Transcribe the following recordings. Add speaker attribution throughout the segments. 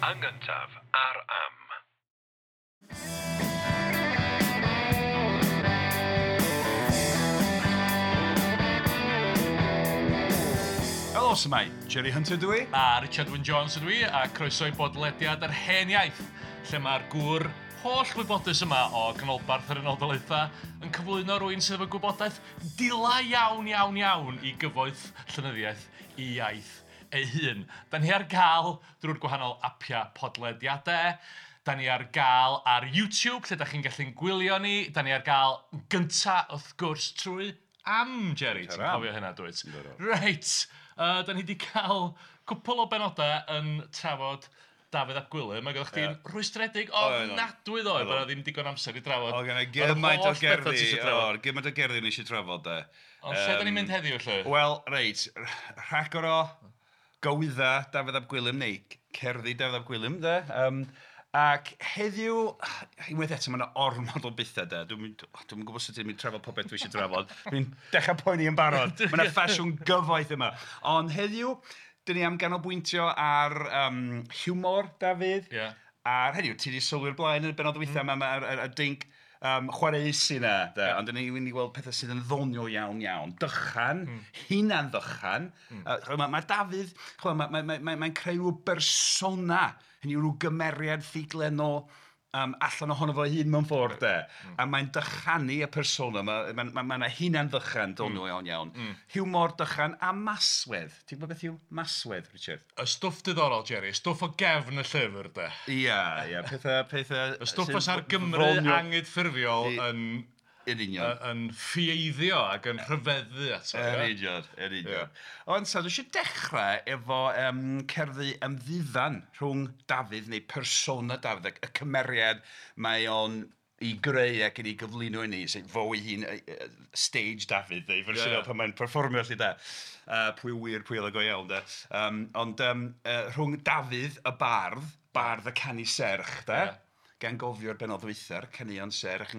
Speaker 1: Yn gyntaf ar Am.
Speaker 2: Helo, s'mai? Jerry Hunter dwi.
Speaker 3: A Richard Wyn Jones ydw i, a croeso i bodlediad yr Hen Iaith, lle mae'r gŵr holl wybodus yma o ganolbarth yr Unol Daleithiau yn cyflwyno rhywun sydd efo gwybodaeth dila iawn, iawn, iawn i gyfoeth llenyddiaeth i iaith ei hun. Da ni ar gael drwy'r gwahanol apiau podlediadau. Da ni ar gael ar YouTube, lle da chi'n gallu'n gwylio ni. Da ni ar gael gynta, wrth gwrs, trwy Am, Jerry. Ti'n cofio hynna, dwyt? Reit, da ni wedi cael cwpl o benodau yn trafod Dafydd ap Gwilym, ac oeddech chdi'n rhwystredig ofnadwy ddoe bod 'na ddim digon amser i drafod.
Speaker 2: Oedd genna i gymaint o gerddi, o, gymaint o gerddi o'n i eisiau trafod de.
Speaker 3: Ond lle da ni'n mynd heddiw 'lly?
Speaker 2: Wel, reit, rhagor o gywydda Dafydd ap Gwilym, neu cerddi Dafydd ap Gwilym de. Ac heddiw, unwaith eto, mae 'na ormod o bethau de. Dwi'm dwi'm yn gwybod sut dwi'n mynd i trafod popeth dwi eisiau trafod. Dwi'n dechrau poeni yn barod. Mae 'na ffasiwn gyfoeth yma. Ond heddiw, dan ni am ganolbwyntio ar hiwmor Dafydd. Ar, hynny yw, ti 'di sylwi'r blaen yn y bennod ddiwetha 'ma, mae'r y dinc chwareus yna de. Ond dan ni'n mynd i weld pethau sydd yn ddoniol iawn iawn. Dychan, hunan ddychan. Chimod, mae Dafydd, chimod, mae'n creu rhyw bersona, hynny yw rhyw gymeriad ffuglenol allan ohono fo ei hun mewn ffordd de. A mae'n dychanu y persona, mae 'na hunan ddychan doniol iawn iawn. Hiwmor, dychan a maswedd. Ti'n gwybod beth yw maswedd, Richard?
Speaker 3: Y stwff diddorol, Jerry, y stwff o gefn y llyfr de.
Speaker 2: Ia, pethau
Speaker 3: Y stwff fysa'r Gymru angydffurfiol yn
Speaker 2: Yn union.
Speaker 3: Yn ffieiddio ac yn rhyfeddu ato.
Speaker 2: Yn union, yn union. Ond so, dwi eisiau dechrau efo cerddi ymddiddan rhwng Dafydd neu persona Dafydd, y cymeriad mae o'n ei greu ac yn ei gyflwyno i ni, sef fo ei hun, stage Dafydd, neu fersiwn pan mae'n perfformio 'lly de. Pwy wir, pwy oedd o go iawn de. Ond rhwng Dafydd y bardd, bardd y canu serch de, gan gofio'r bennod ddwytha'r caneuon serch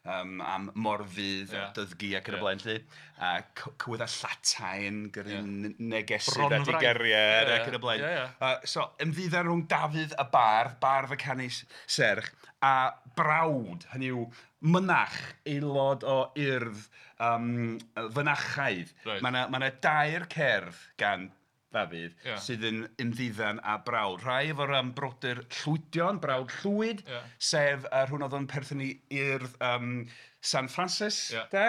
Speaker 2: am Morfudd a Dyddgu ac yn y blaen 'lly, a cywyddau llatain gyrru negesydd at ei gariad ac yn y blaen. So ymddiddan rhwng Dafydd y bardd, bardd y canu serch, a brawd, hynny yw mynach, aelod o urdd fynachaidd. Mae 'na dair cerdd gan Ddafydd sydd yn ymddiddan â brawd. Rhai efo'r brodyr Llwydion, brawd Llwyd, sef rhywun oedd yn perthyn i urdd San Francis, de?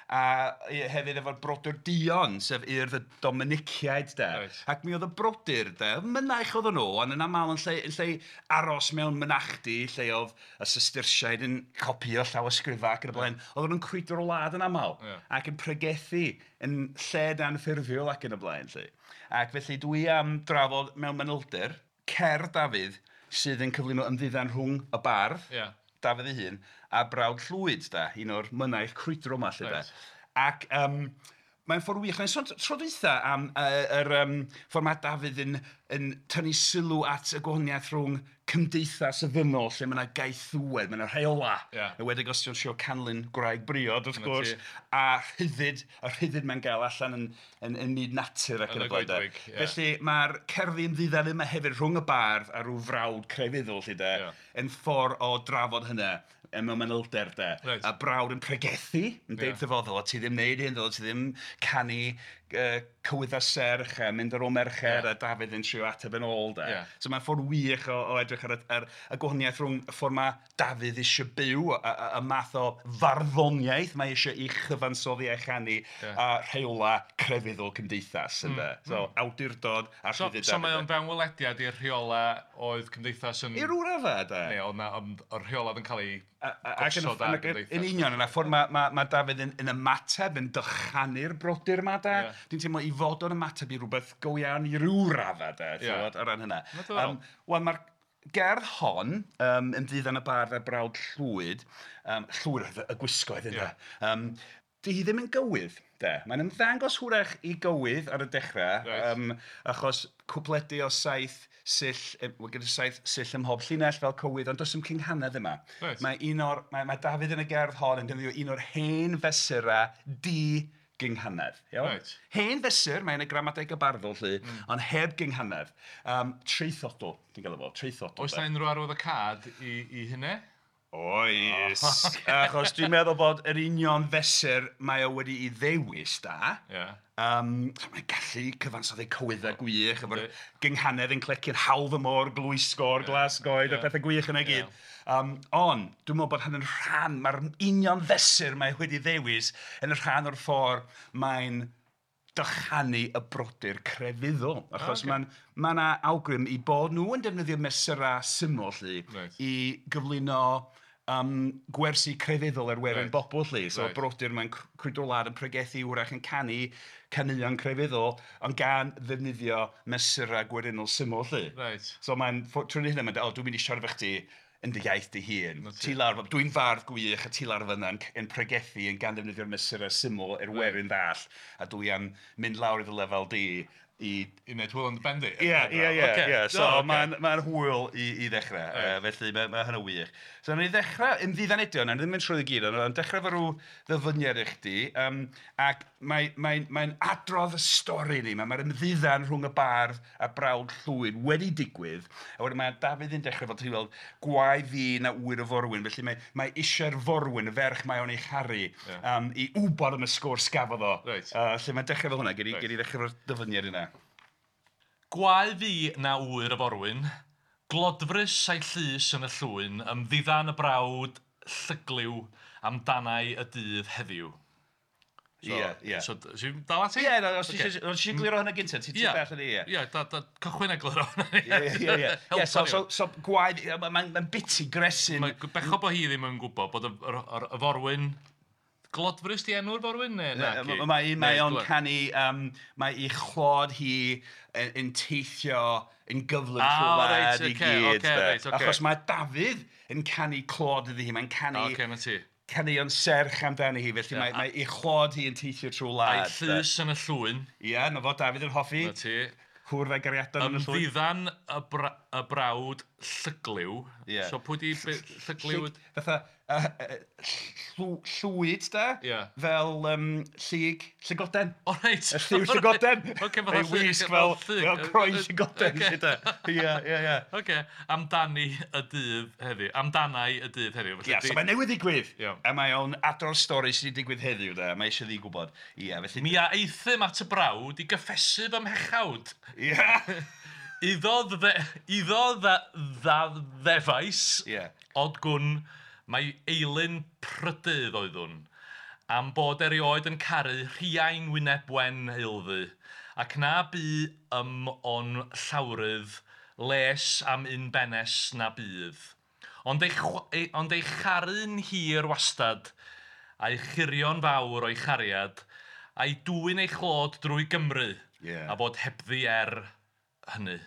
Speaker 2: A hefyd efo'r brodyr Duon, sef urdd y Dominiciaid, de? Ac mi oedd y brodyr, de, mynaich oedden nhw, ond yn aml yn lle aros mewn mynachdy, lle oedd y Sistersiaid yn copïo llawysgrifau ac yn y blaen, oedden nhw'n crwydro'r wlad yn aml, ac yn pregethu yn lled anffurfiol ac yn y blaen, 'lly. Ac felly dwi am drafod mewn manylder cerdd Dafydd sydd yn cyflwyno ymddiddan rhwng y bardd, Dafydd ei hun, a brawd Llwyd, de, un o'r mynaich crwydro yma, 'lly, de. Ac mae'n ffordd wych. Mae'n sôn tro dwytha am yr ffordd mae Dafydd yn tynnu sylw at y gwahaniaeth rhwng cymdeithas y ddynol, lle mae yna gaethiwed, mae yna rheolau. Yn enwedig os ti'n trio canlyn gwraig briod, wrth gwrs, a rhyddid, y rhyddid mae'n gael allan yn myd natur ac yn y blaen. Felly mae'r cerddi ymddiddan yma hefyd rhwng y bardd a rhyw frawd crefyddol, 'lly de, yn ffordd o drafod hynna mewn manylder de. A brawd yn pregethu, yn deud wrtho fo, ddyla ti ddim wneud hyn, ddyla ti ddim canu cywyddau serch a mynd ar ôl merched, a Dafydd yn trio ateb yn ôl de. So mae'n ffordd wych o edrych ar y gwahaniaeth rhwng y ffordd mae Dafydd eisiau byw, y math o farddoniaeth mae eisiau ei chyfansoddi a'i chanu, a rheolau crefyddol cymdeithas, ynde. So awdurdod a rhyddid.
Speaker 3: So mae o'n fewnwelediad i'r rheolau oedd cymdeithas yn...
Speaker 2: I ryw raddau de.
Speaker 3: Neu oedd 'na, ond o'r rheolau oedd yn cael eu gosod ar gymdeithas.
Speaker 2: Yn union, yna ffordd mae Dafydd yn ymateb, yn dychanu'r brodyr yma de. Dwi'n teimlo i fod o'n ymateb i rhywbeth go iawn i ryw raddau de, ti'n gwybod, o ran hynna. Wel, mae'r gerdd hon, ymddiddan y bardd a'r brawd Llwyd, Llwyd oedd y gwisgoedd ynde, 'di hi ddim yn gywydd, de. Mae'n ymddangos hwyrach i gywydd ar y dechrau, achos cwpledi o 7 sill, wel, gyda 7 sill ym mhob llinell fel cywydd, ond does dim cynghanedd yma. Mae un o'r, mae Dafydd yn y gerdd hon yn defnyddio un o'r hen fesurau di gynghanedd. Iawn?
Speaker 3: Reit.
Speaker 2: Hen fesur, mae'n y gramadeg y barddol 'lly, ond heb gynghanedd. Traethodl, ti'n gael efo, traethodl.
Speaker 3: Oes na unrhyw arwyddocâd i hynny?
Speaker 2: Oes. Achos dwi'n meddwl bod yr union fesur mae o wedi'i ddewis da. Mae'n gallu cyfansoddi cywyddau gwych, efo'r gynghanedd yn cleci'n hawdd y môr, glwysgor, glas goed, a pethau gwych yna i gyd. Ond, dwi'n meddwl bod hynny'n rhan, mae'r union fesur mae wedi ddewis yn rhan o'r ffordd mae'n dychanu y brodyr crefyddol. Achos mae yna awgrym i bod nhw yn defnyddio mesurau syml 'lly, i gyflwyno gwersi crefyddol er werin bobl 'lly. So brodyr mae'n crwydro'r wlad yn pregethu, wrach yn canu caneuon crefyddol, ond gan ddefnyddio mesurau gwerinol syml 'lly. So mae'n, trwy hynny, mae'n dweud, o, dwi'n mynd i siarad efo chdi yn dy iaith dy hun. Ti lawr, dwi'n fardd gwych a ti lawr fyna yn pregethu yn gan ddefnyddio'r mesurau syml er werin ddall, a dwi am mynd lawr i dy lefel di i
Speaker 3: wneud hwyl yn dy ben di.
Speaker 2: Ie. So mae'n hwyl i ddechrau, felly mae hynny wych. So wnawn ni ddechrau, ymddiddan eto, wnawn ni ddim mynd trwy i gyd, ond dechrau efo rhyw ddyfyniad i chdi, ac mae'n adrodd y stori ni, mae'r ymddiddan rhwng y bardd a brawd Llwyd wedi digwydd, a wedyn mae Dafydd yn dechrau fel ti'n weld, gwae fi na ŵyr y forwyn, felly mae eisiau'r forwyn, y ferch mae o'n ei charu, i wybod am y sgwrs gafodd o. Lle mae'n dechrau fel hwnna, gei di ddechrau efo'r dyfyniad yna.
Speaker 3: Gwae fi na ŵyr y forwyn, glodfrys a'i llys yn y llwyn, ymddiddan y brawd llygliw amdanau y dydd heddiw.
Speaker 2: Ie.
Speaker 3: So, ti'n dal ati?
Speaker 2: Ie, os ti eisiau gliro hwnna gyntaf, ti'n bell yn ei, ie.
Speaker 3: Ie, cychwyn egluro hwnna.
Speaker 2: Ie. So, gwae, mae'n biti gresyn.
Speaker 3: Mae'n bechod bod hi ddim yn gwybod bod y forwyn... Glodfrys di enw'r forwyn?
Speaker 2: Mae o'n canu, mae ei chlod hi yn teithio yn gyflym trwy wlad i gyd. Achos mae Dafydd yn canu clod iddi hi, mae'n canu caneuon serch amdani hi, felly mae ei chlod hi yn teithio trwy wlad.
Speaker 3: A'i llys yn y llwyn.
Speaker 2: Ie, na fo Dafydd yn hoffi.
Speaker 3: Na ti.
Speaker 2: Cwrdd â'i gariadon yn y llwyn.
Speaker 3: Ymddiddan y brawd llygliw. So pwy di llygliw?
Speaker 2: Fatha llwyd da, fel llyg, llygoden.
Speaker 3: O reit.
Speaker 2: Y lliw llygoden. Ei wisg fel croen llygoden. Ie.
Speaker 3: Oce, amdani y dydd heddiw. Amdanau y dydd heddiw.
Speaker 2: Ie, so mae'n newydd ddigwydd. A mae o'n adrodd stori sydd wedi digwydd heddiw da. Mae eisiau ddi gwybod. Ie, felly...
Speaker 3: Mi a aethum at y brawd i gyffesu fy mhechawd.
Speaker 2: Ie.
Speaker 3: Iddo ddeddfais, od gwn, mae eilun prydydd oeddwn, am bod erioed yn caru rhiain wyneb wen eilddu, ac na bu ym o'n llawrydd les am un benes na bydd. Ond ei charu'n hir wastad, a'i churio'n fawr o'i chariad, a'i dwyn ei chlod drwy Gymru, a bod hebddi hynny,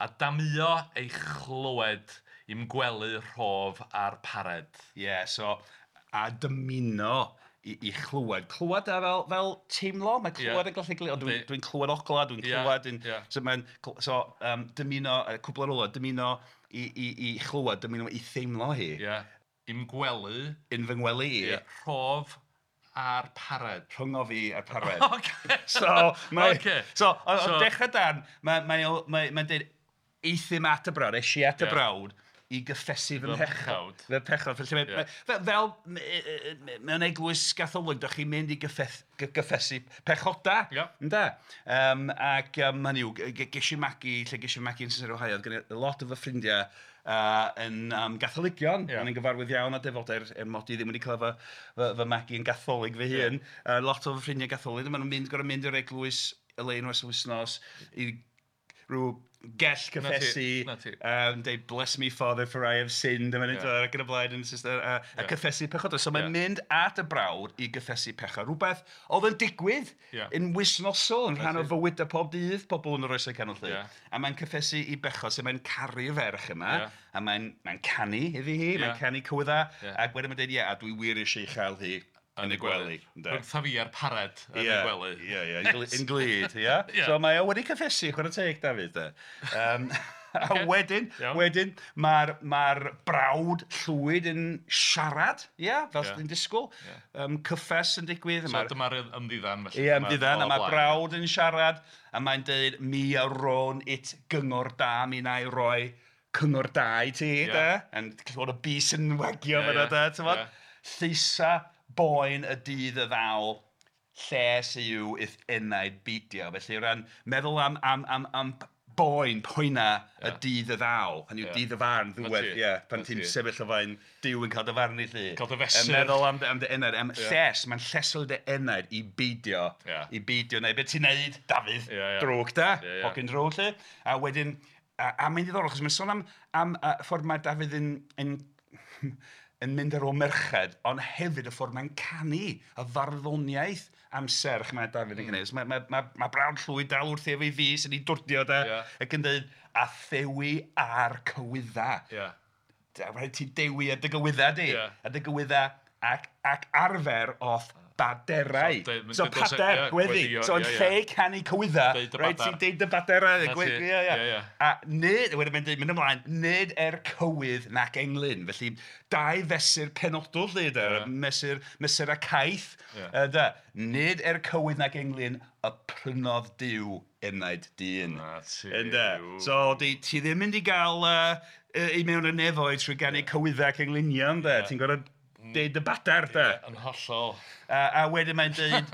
Speaker 3: a damio ei chlywed i'm gwely rhof a'r pared.
Speaker 2: Ie, so, a dymuno i chlywed. Clywed a fel teimlo, mae clywed yn gallu glir, ond dwi'n clywed ogla, dwi'n clywed... So, so dymuno, cwbl ar ola, dymuno i chlywed, dymuno i theimlo hi.
Speaker 3: Ie, i'm gwely.
Speaker 2: Yn fy ngwely i.
Speaker 3: Ie, rhof a'r pared.
Speaker 2: Rhyngo fi a'r pared.
Speaker 3: Oce.
Speaker 2: So, mae... So, o dechrau dan, mae'n dweud, aethum at y brawd, es i at y brawd, i gyffesu fy mhechod. Fy mhechod. Felly, fel mewn eglwys Gatholig, dach chi'n mynd i gyffesu pechoda. Ynde? Ac hynny yw, ges i magu, lle ges i magu yn Cincinnati, Ohio, oedd gen i lot o fy ffrindiau yn Gatholigion. O'n i'n gyfarwydd iawn â defodau, er mod i ddim wedi cael fy magu yn Gatholig fy hun. Lot o fy ffrindiau Gatholig, maen nhw'n gorfod mynd i'r eglwys y lein oes wythnos i rhyw gell cyffesu, deud bless me father for I have sinned, ac yn y blaen, a cyffesu pechodau. So mae'n mynd at y brawd i gyffesu pechod. Rhywbeth oedd yn digwydd yn wythnosol, yn rhan o fywydau pob dydd, pobl yn yr oesau canol 'lly. A mae'n cyffesu i bechod, so mae'n caru'r ferch yma, a mae'n canu iddi hi, mae'n canu cywydda, ac wedyn mae'n dweud, ie, a dwi wir eisiau ei chael hi yn y gwely.
Speaker 3: Rhyngtha fi a'r pared yn y gwely.
Speaker 2: Ie, yn glyd, ie. So mae o wedi cyffesu, chwarae teg, Dafydd. A wedyn, wedyn mae'r brawd Llwyd yn siarad, ia, fel sy'n disgwyl. Cyffes yn digwydd.
Speaker 3: So dyma'r ymddiddan felly.
Speaker 2: Ie, ymddiddan, a mae'r brawd yn siarad, a mae'n dweud, mi a rown it gyngor da, mi na i roi cyngor da i ti, de. Yn clywed y bys yn wagio fan'na, de, ti'mod. Lleisa boen y dydd y ddaw, lles yw i'th enaid beidio. Felly o ran meddwl am boen, poena y dydd y ddaw, hynny yw dydd y farn, ddiwedd, ie, pan ti'n sefyll o flaen Duw yn cael dy farnu 'lly.
Speaker 3: Cael dy fesur.
Speaker 2: Yn meddwl am dy enaid, am lles, mae'n llesol dy enaid i beidio, i beidio, neu beth ti'n neud, Dafydd, drwg da, hogyn drwg 'lly. A wedyn, a mae'n ddiddorol, achos mae'n sôn am y ffordd mae Dafydd yn mynd ar ôl merched, ond hefyd y ffordd mae'n canu, y farddoniaeth am serch mae Dafydd yn gwneud. Mae brawd Llwyd dal wrthi efo'i fys yn ei dwrdio de, ac yn dweud, a thewi ar cywydda. Rhaid ti dewi ar dy gywydda di, a dy gywydda ac arfer o'th baderau. So pader, gweddi. So yn lle canu cywydda, rhaid ti'n deud dy baderau. A nid, wedyn mae'n dweud, mynd ymlaen, nid er cywydd nac englyn. Felly dau fesur penodol lle, de, mesur a caeth. Nid er cywydd nac englyn y prynodd Duw enaid dyn. So ti ddim mynd i gael i mewn y nefoedd trwy ganu cywydda ac englynion, de. Ti'n gorfod deud y badar, de.
Speaker 3: Yn hollol.
Speaker 2: A wedyn mae'n deud,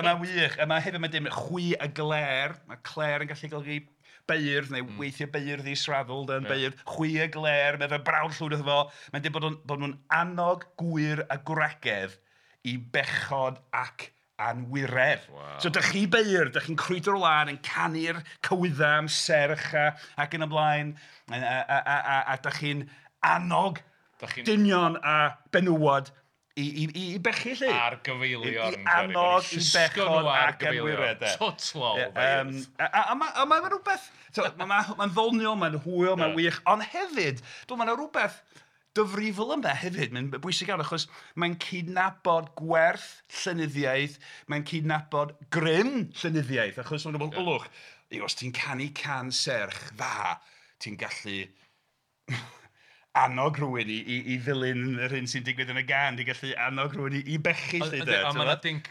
Speaker 2: mae'n wych, a mae hefyd mae'n deud, chwi a gler, mae cler yn gallu golygu beirdd, neu weithiau beirdd israddol, yn beirdd, chwi a gler, mae fe brawd Llwyd wrtho fo, mae'n deud bod nhw'n annog gwyr a gwragedd i bechod ac anwiredd. So dych chi beirdd, dych chi'n crwydro'r wlad yn canu'r cywydda am serch ac yn y blaen, a dych chi'n annog dynion a benywod i bechu 'lly.
Speaker 3: Ar gyfeilion.
Speaker 2: I annog i bechod ac anwiredd.
Speaker 3: Total.
Speaker 2: A mae'n rhywbeth, mae'n ddoniol, mae'n hwyl, mae'n wych, ond hefyd, mae'n rhywbeth difrifol yma hefyd, mae'n bwysig iawn, achos mae'n cydnabod gwerth llenyddiaeth, mae'n cydnabod grym llenyddiaeth, achos mae'n rhywbeth, ylwch, os ti'n canu can serch dda, ti'n gallu annog rhywun i ddilyn yr hyn sy'n digwydd yn y gan, ti'n gallu annog rhywun i bechu 'lly de.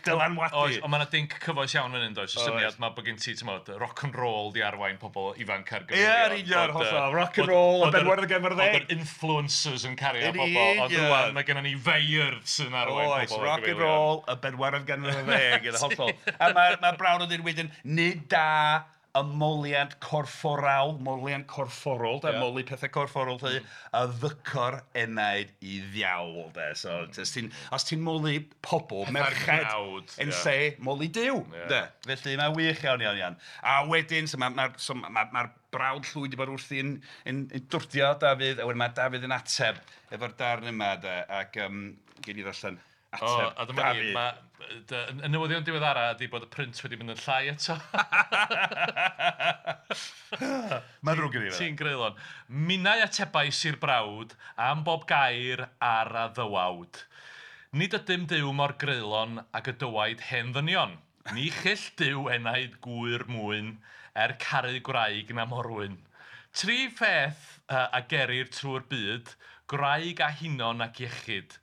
Speaker 2: Dylanwadu.
Speaker 3: Oes, ond mae yna dinc cyfoes iawn fan hyn, does? Y syniad mae bod gen ti, ti'mod, rock and roll di arwain pobl ifanc ar gyfeilion.
Speaker 2: Ie, yn union, hollol. Rock and roll, y bedwaredd ganrif ar ddeg.
Speaker 3: Oedd yr influencers yn cario pobl, ond rŵan mae gennym ni feirdd sy'n arwain pobl ar gyfeilion.
Speaker 2: Oes, rock and roll, y bedwaredd ganrif ar ddeg, yn hollol. A mae brawd yn dweud wedyn, nid da y moliant corfforawl, moliant corfforol, de, moli pethau corfforol, lle, a ddycor enaid i ddiawl, de. So, os ti'n moli pobl, merched, yn lle moli Duw, de. Felly, mae'n wych iawn, iawn, iawn. A wedyn, so mae'r brawd Llwyd wedi bod wrthi yn dwrdio Dafydd, a wedyn mae Dafydd yn ateb efo'r darn yma, de, ac gen i ddarllen ateb
Speaker 3: a dyma ni, y newyddion diweddara ydy bod y print wedi mynd yn llai eto.
Speaker 2: Mae'n ddrwg gen i fe.
Speaker 3: Ti'n greulon. Minnau atebais i'r brawd am bob gair ar a ddywawd. Nid ydym Duw mor greulon ag y dywaid hen ddynion. Ni chyll Duw enaid gwyr mwyn er caru gwraig na morwyn. Tri pheth a gerir trwy'r byd, gwraig a hunon ac iechyd.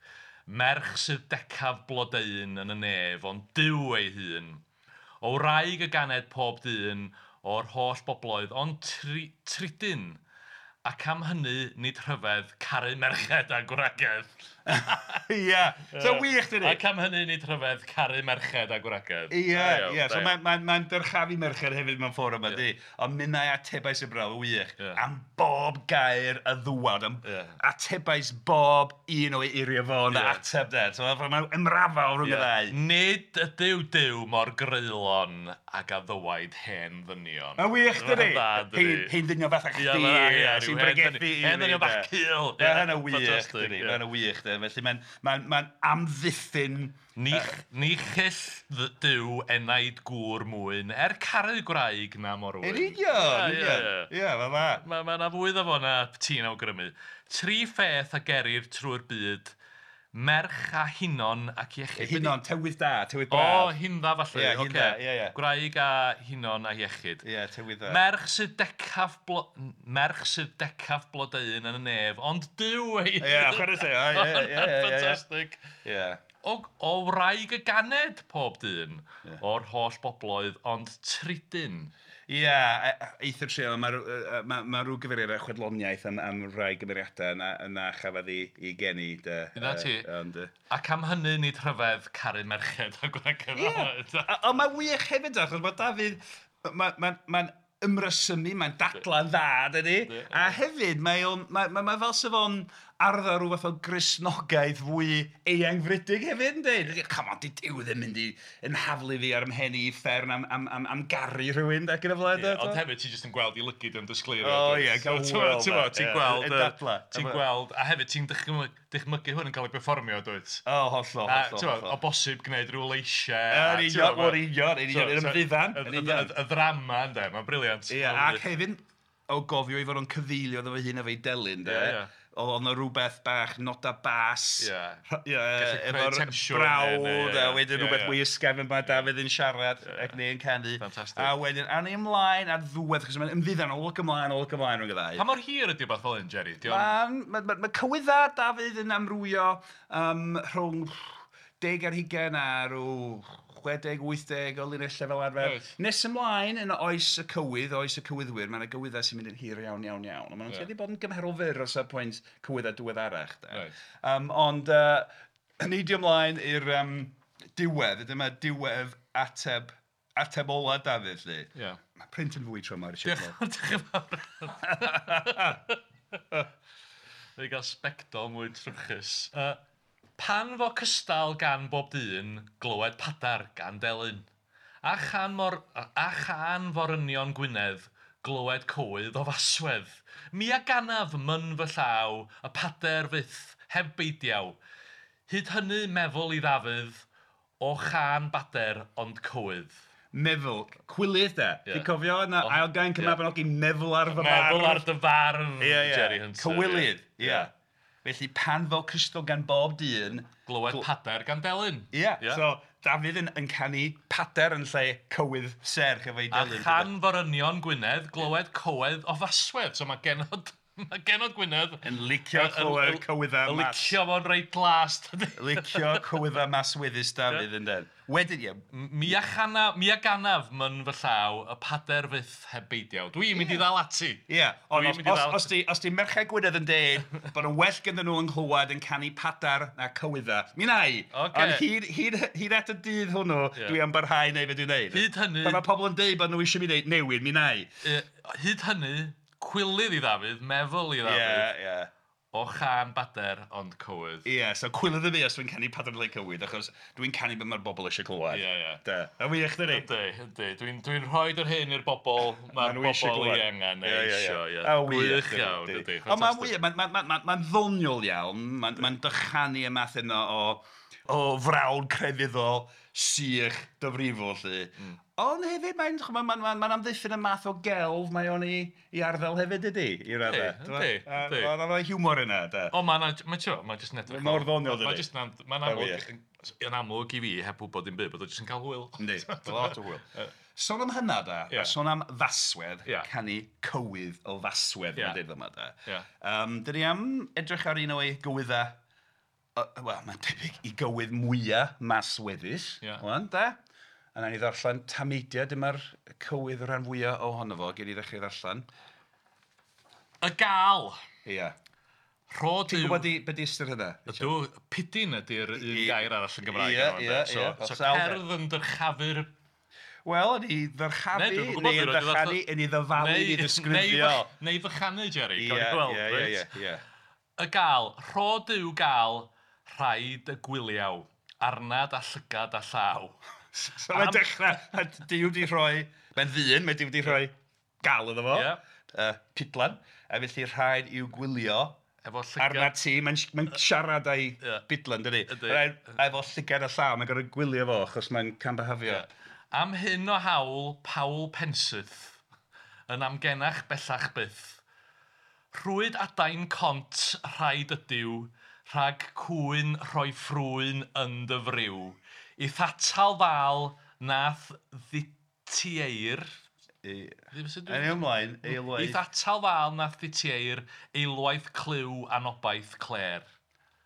Speaker 3: Merch sydd decaf blodeuyn yn y nef, ond Duw ei hun. O wraig y ganed pob dyn o'r holl bobloedd, ond tridyn. Ac am hynny, nid rhyfedd, caru merched a gwragedd.
Speaker 2: Ie, so wych dydi?
Speaker 3: Ac am hynny, nid rhyfedd, caru merched a gwragedd.
Speaker 2: Ie, ie, so mae'n dyrchafu merched hefyd mewn ffordd yma, di. Ond minnau atebais y brawd, wych, am bob gair y ddwad, am atebais bob un o'i eiriau fo yn ateb de. So mae'n ymrafael rhwng y ddau.
Speaker 3: Nid ydyw Duw mor greulon ag a ddywaid hen ddynion.
Speaker 2: Mae'n wych dydi? Hen ddynion fatha chdi. Sy'n bregethu i
Speaker 3: Hen ddynion bach cul.
Speaker 2: Mae hynna wych, dydi? Mae hynna wych, de. Felly mae'n amddiffyn...
Speaker 3: Ni chyll Duw enaid gŵr mwyn, er caru gwraig na morwyn.
Speaker 2: Yn union, ie, mae'n dda.
Speaker 3: Mae yna fwy iddo fo na ti'n awgrymu. Tri pheth a gerir trwy'r byd, Merch a hinon ac iechyd.
Speaker 2: Hinon, tywydd da, tywydd braf.
Speaker 3: O, hindda falle.
Speaker 2: Ie, hindda, ie, ie.
Speaker 3: Gwraig a hinon a iechyd.
Speaker 2: Ie, tywydd da.
Speaker 3: Merch sydd decaf, blo... Merch sydd decaf blodeuyn yn y nef, ond Duw ei...
Speaker 2: Ie, chwarae teg, ie, ie, ie, ie.
Speaker 3: Ffantastig.
Speaker 2: Ie.
Speaker 3: O wraig y ganed pob dyn, o'r holl bobloedd, ond tridyn.
Speaker 2: Ie, eithr trio, mae ma rhyw gyfeiriad ar chwedloniaeth am rai gymeriadau na chafodd ei geni.
Speaker 3: Dyna ti.
Speaker 2: Ond,
Speaker 3: Ac am hynny nid rhyfedd caru merched a gwragedd.
Speaker 2: Ie, ond mae wych hefyd, achos mae Dafydd, mae'n ymrysymu, mae'n dadla'n dda, dydy? A hefyd, mae fel sef o'n arddel rhyw fath o Gristnogaeth fwy eangfrydig hefyd, yndi? Come on, di Duw ddim mynd i ymhaflu fi ar ymhen i uffern am garu rhywun, ac yn y blaen.
Speaker 3: Ond hefyd, ti jyst yn gweld i lygid yn disgleirio.
Speaker 2: O ie, gael hwyl.
Speaker 3: Ti'n gweld, ti'n gweld, a hefyd ti'n dychmygu hwn yn cael ei berfformio, dwyt?
Speaker 2: O, hollol, hollol.
Speaker 3: O bosib gwneud rhyw leisiau.
Speaker 2: Yn union, yn union, yn ymddiddan.
Speaker 3: Y ddrama, ynddo, mae'n brilliant.
Speaker 2: Ie, ac hefyd, o gofio i fod o'n cyfeilio iddo fo hun efo'i delyn, de. Oedd yna rhywbeth bach noda bas, efo'r brawd, a wedyn rhywbeth mwy ysgafn mae Dafydd yn siarad ac neu'n canu.
Speaker 3: Fantastic.
Speaker 2: A wedyn, awn ni ymlaen ar ddiwedd, achos mae'n ymddiddan, olwg ymlaen rhwng y ddau.
Speaker 3: Pa mor hir ydy beth fel hyn, Jerry?
Speaker 2: Mae cywydda Dafydd yn amrywio rhwng 10 ar 20 a rhyw 60, 80 o linellau fel arfer.
Speaker 3: Right.
Speaker 2: Nes ymlaen yn oes y cywydd, oes y cywyddwyr, mae yna gywyddau sy'n mynd yn hir iawn, iawn, iawn. Ond maen nhw'n tueddu bod yn gymharol fyr o safbwynt cywyddau diweddarach.
Speaker 3: Right.
Speaker 2: Ond neidio ymlaen i'r diwedd, dyma diwedd ateb ola Dafydd, lly.
Speaker 3: Yeah.
Speaker 2: Mae print yn fwy tro yma, Richard.
Speaker 3: Diolch yn fawr. Fe gael sbectol mwy trwchus. Pan fo cystal gan bob dyn, glywed padar gan delyn. A chan forynion Gwynedd, glywed cywydd o faswedd. Mi a ganaf myn fy llaw, y pader fyth, heb beidiaw. Hyd hynny meddwl i Ddafydd, o chan bader ond cywydd.
Speaker 2: Meddwl, cwilydd de.
Speaker 3: Yeah.
Speaker 2: Ti'n cofio yna ail gainc y Mabinogi, meddwl ar fy farf.
Speaker 3: Meddwl ar dy farf, Jerry Hunter.
Speaker 2: Cywilydd, ie. Felly pan fo cystal gan bob dyn...
Speaker 3: Glywed pader gan delyn.
Speaker 2: Ie, so Dafydd yn canu pader yn lle cywydd serch efo'i delyn.
Speaker 3: A chan forynion Gwynedd, glywed cywydd o faswedd. So mae genod Gwynedd...
Speaker 2: Yn licio clywed cywyddau mas.
Speaker 3: Licio fo'n reit glas.
Speaker 2: Licio cywyddau masweddus Dafydd yn den. Wedyn, ie.
Speaker 3: Mi a ganaf myn fy llaw, y pader fyth heb beidiaw. Dwi'n mynd i ddal ati.
Speaker 2: Ie, ond os di Merched Gwynedd yn deud bod yn well ganddyn nhw yng nghlywed yn canu padar na cywyddau, mi wna i. Ond hyd at y dydd hwnnw, dwi am barhau neu fe dwi'n neud.
Speaker 3: Hyd hynny...
Speaker 2: Pan mae pobl yn deud bod nhw eisiau mi wneud newid, mi wna i.
Speaker 3: Hyd hynny, cwilydd i Ddafydd, meddwl i Ddafydd.
Speaker 2: Ie, ie.
Speaker 3: O chan bader ond cywydd.
Speaker 2: Ie, so cwilydd y fi os dwi'n canu pader le cywydd, achos dwi'n canu beth mae'r bobl eisiau clywed.
Speaker 3: Ie, ie.
Speaker 2: Da. A wych, dydi?
Speaker 3: Yndi, yndi. Dwi'n rhoi yr hyn i'r bobl, mae'r bobl i angen neu eisiau. Ie,
Speaker 2: A wych
Speaker 3: iawn, yndi.
Speaker 2: Ond mae'n wych, mae'n ddoniol iawn, mae'n dychanu y math yna o frawd crefyddol, sych, dyfrifol, lly. Ond hefyd, mae'n amddiffyn y math o gelf mae o'n i arddel hefyd, ydy, i raddau.
Speaker 3: Yndi, yndi.
Speaker 2: Mae'n hiwmor yna, da.
Speaker 3: O, mae'n jyst yn edrych.
Speaker 2: Mor ddoniol, dydy.
Speaker 3: Mae'n amlwg, yn amlwg i fi, heb wybod dim byd, bod o jyst yn cael hwyl.
Speaker 2: Yndi, lot o hwyl. Sôn am hynna, da, a sôn am faswedd, canu cywydd o faswedd, mae'n dweud yma, da. Dyn ni am edrych ar un o'i gywyddau, wel, mae'n debyg i gywydd mwyaf masweddus, wan, da. A nawn ni ddarllen tameidiau, dyma'r cywydd rhan fwyaf ohono fo, gen i ddechrau ddarllen.
Speaker 3: Y gal.
Speaker 2: Ie.
Speaker 3: Rho Duw...
Speaker 2: Ti'n gwybod be di ystyr hynna?
Speaker 3: Ydw, pidyn ydy'r un gair arall yn Gymraeg.
Speaker 2: Ie, ie,
Speaker 3: So cerdd yn dyrchafu'r...
Speaker 2: Wel, yn ei ddyrchafu, neu yn ddychanu, yn ei ddyfalu, yn ei ddisgrifio.
Speaker 3: Neu fychanu, Jerry,
Speaker 2: Ie, ie, ie.
Speaker 3: Y gal, rho Duw gal, rhaid y gwyliaw, arnad a llygad a llaw.
Speaker 2: So mae'n dechrau, Duw wedi rhoi, mae'n ddyn, mae Duw wedi rhoi gal iddo fo, pidlan, a felly rhaid i'w gwylio
Speaker 3: efo llygad.
Speaker 2: Arna ti, mae'n siarad â'i bidlan, dydi? Efo llygad a llaw, mae'n gorfod gwylio fo, achos mae'n cambahafio.
Speaker 3: Am hyn o hawl, Paul Pensyth, yn amgenach bellach byth. Rhwyd adain cont, rhaid ydyw, rhag cwyn rhoi ffrwyn yn dy friw. I'th atal ddal nath dditieir.
Speaker 2: Yn ymlaen, eilwaith.
Speaker 3: I'th atal ddal nath dditieir, eilwaith clyw anobaith cler.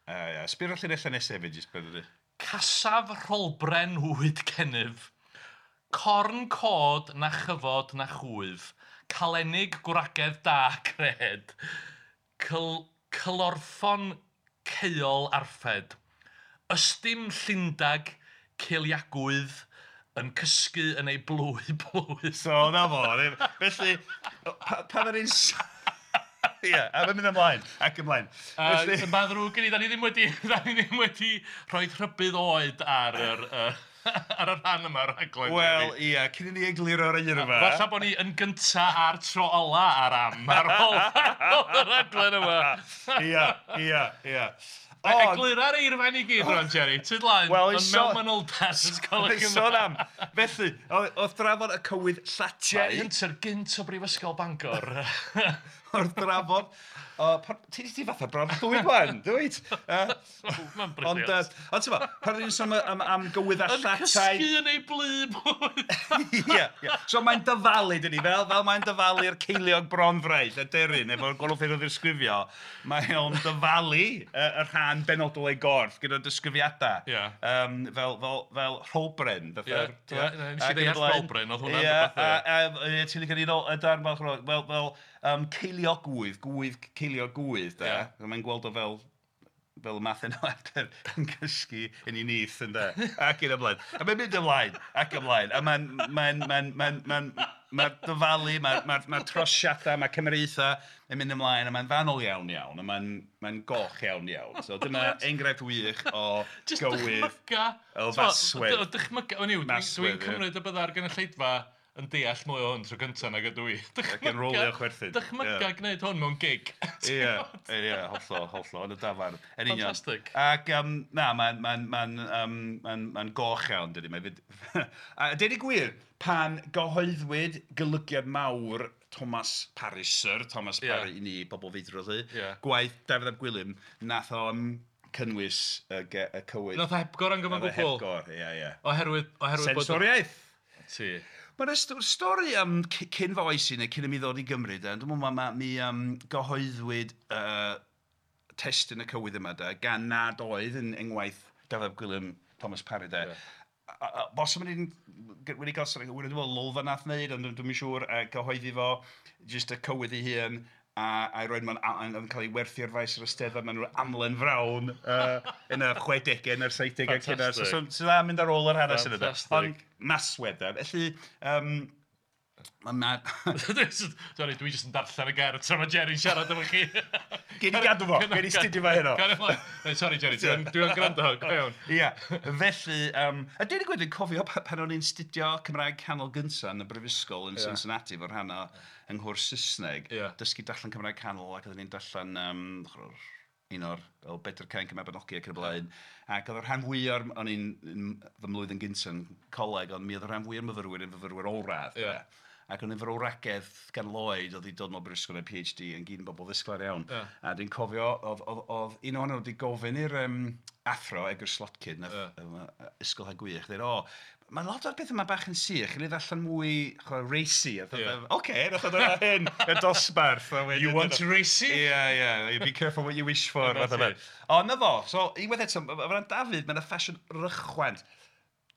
Speaker 2: Ia, sbio'r llinellau nesaf hefyd, jyst beth ydy.
Speaker 3: Casaf rholbren wyd gennyf, corn cod na chyfod na chwyf, calenig gwragedd da cred, cylorffon caeol arffed, ystym llindag ceiliagwydd yn cysgu yn ei blwy blwy.
Speaker 2: So, na fo. Felly, pan yr un... Ie, a mae'n mynd ymlaen, ac ymlaen.
Speaker 3: Felly... Mae'n ddrwg gen i, da ni ddim wedi rhoi rhybudd oed ar yr... ar y rhan yma o'r rhaglen.
Speaker 2: Wel, ia, cyn i ni egluro'r eirfa.
Speaker 3: Falle bod ni yn gynta a'r tro ola ar am, ar ôl y rhaglen yma.
Speaker 2: Ia, ia, ia.
Speaker 3: Eglura'r eirfa ni gyd rwan, Jerry. Tyd laen, yn mewn manylder.
Speaker 2: Sôn am. Felly, oedd drafod y cywydd llatiau.
Speaker 3: Jerry Hunter gynt o Brifysgol Bangor.
Speaker 2: Wrth drafod... Ti di fatha bron ddwy gwan, dwyt?
Speaker 3: Mae'n brilliant.
Speaker 2: Ond ti'n fo, pan ni'n sôn am gywydd a llatai...
Speaker 3: Yn cysgu yn ei blu blwydd.
Speaker 2: Ie, ie. So mae'n dyfalu, dyn ni, fel mae'n dyfalu'r ceiliog bronfraith, y deryn, efo'r gwahanol ffyrdd o ddisgrifio, mae o'n dyfalu y rhan benodol ei gorff gyda disgrifiadau.
Speaker 3: Ie.
Speaker 2: Fel rholbren.
Speaker 3: Ie, nes i ddeall rholbren, oedd hwnna'n rhywbeth.
Speaker 2: Ie, ti'n licio ni y darn fel ceiliogwydd, gwydd, ceiliogwydd, de.
Speaker 3: Yeah.
Speaker 2: Mae'n gweld o fel y math yna adar yn cysgu yn ei nyth, ynde. Ac yn ymlaen. A mae'n mynd ymlaen, ac ymlaen. A mae'n dyfalu, mae'r trosiadau, mae'r cymeriaethau yn mynd ymlaen, a mae'n fanwl iawn iawn, a mae'n goch iawn iawn. So dyma enghraifft wych o gywydd, o faswedd.
Speaker 3: Dychmyga, dwi'n cymryd y bydda'r gynulleidfa yn deall mwy o hwn tro gyntaf nag ydw i.
Speaker 2: Ac yn rolio chwerthin.
Speaker 3: Dychmyga gwneud hwn mewn gig.
Speaker 2: Ie, ie, hollol, hollol, yn y dafarn.
Speaker 3: Fantastic.
Speaker 2: Ac, na, mae'n goch iawn, dydy. A deud y gwir, pan gyhoeddwyd golygiad mawr Thomas Parry, Sir Thomas Parry, i ni, bobl feidrol lly, gwaith Dafydd ap Gwilym, nath o'n cynnwys y cywydd.
Speaker 3: Nath o hepgor yn gyfan gwbl.
Speaker 2: Hepgor, ie, ie.
Speaker 3: Oherwydd
Speaker 2: Sensoriaeth.
Speaker 3: Ti.
Speaker 2: Mae'n stori am cyn fy oes i neu cyn i mi ddod i Gymru, de. Dwi'n meddwl mi gyhoeddwyd testun y cywydd yma, de, gan nad oedd yn engwaith Dafydd ap Gwilym Thomas Parry, de.
Speaker 3: Yeah.
Speaker 2: Bosib yn wedi cael, dwi'n meddwl Lolfa nath wneud, ond dwi'n siŵr gyhoeddi fo, jyst y cywydd ei hun, a'i roed mewn, yn cael ei werthu ar faes yr Eisteddfod mewn amlen frown yn y 60au neu'r 70au cynnar. So dda mynd ar ôl yr hanes yna. Ond maswedd, de. Felly,
Speaker 3: Sorry, dwi jyst yn darllen y gerdd tra mae Jerry'n siarad efo chi.
Speaker 2: Gei di gadw fo, gei di studio fo heno.
Speaker 3: Sorry Jerry, dwi'n gwrando, go iawn.
Speaker 2: Ia, felly, a dweud y gwir, dwi'n cofio pan o'n i'n studio Cymraeg Canol gynta yn y Brifysgol yn Cincinnati, fo'r rhan o yng nghwrs Saesneg, dysgu darllen Cymraeg Canol ac oedden ni'n darllen un o'r Bedr Cainc y Mabinogi ac yn y blaen. Ac oedd y rhan fwyaf, o'n i'n fy mlwyddyn gynta yn coleg, ond mi oedd y rhan fwyaf myfyrwyr yn fyfyrwyr olradd. Ac o'n fyfyrwragedd gan Lloyd oedd wedi dod mewn brifysgol neu PhD yn gyd yn bobl ddisglair iawn.
Speaker 3: Yeah.
Speaker 2: A dwi'n cofio, oedd un ohonyn nhw wedi gofyn i'r athro, Edgar Slotkin, ysgol ha gwych, dweud, o, mae lot o'r beth yma bach yn sych, yn ei ddarllen mwy racy. Oce, nath o ddod hyn, y dosbarth.
Speaker 3: You want racy?
Speaker 2: Yeah, yeah, be careful what you wish for. O, na fo, so, unwaith eto, o ran Dafydd, mae'n ffasiwn rychwant.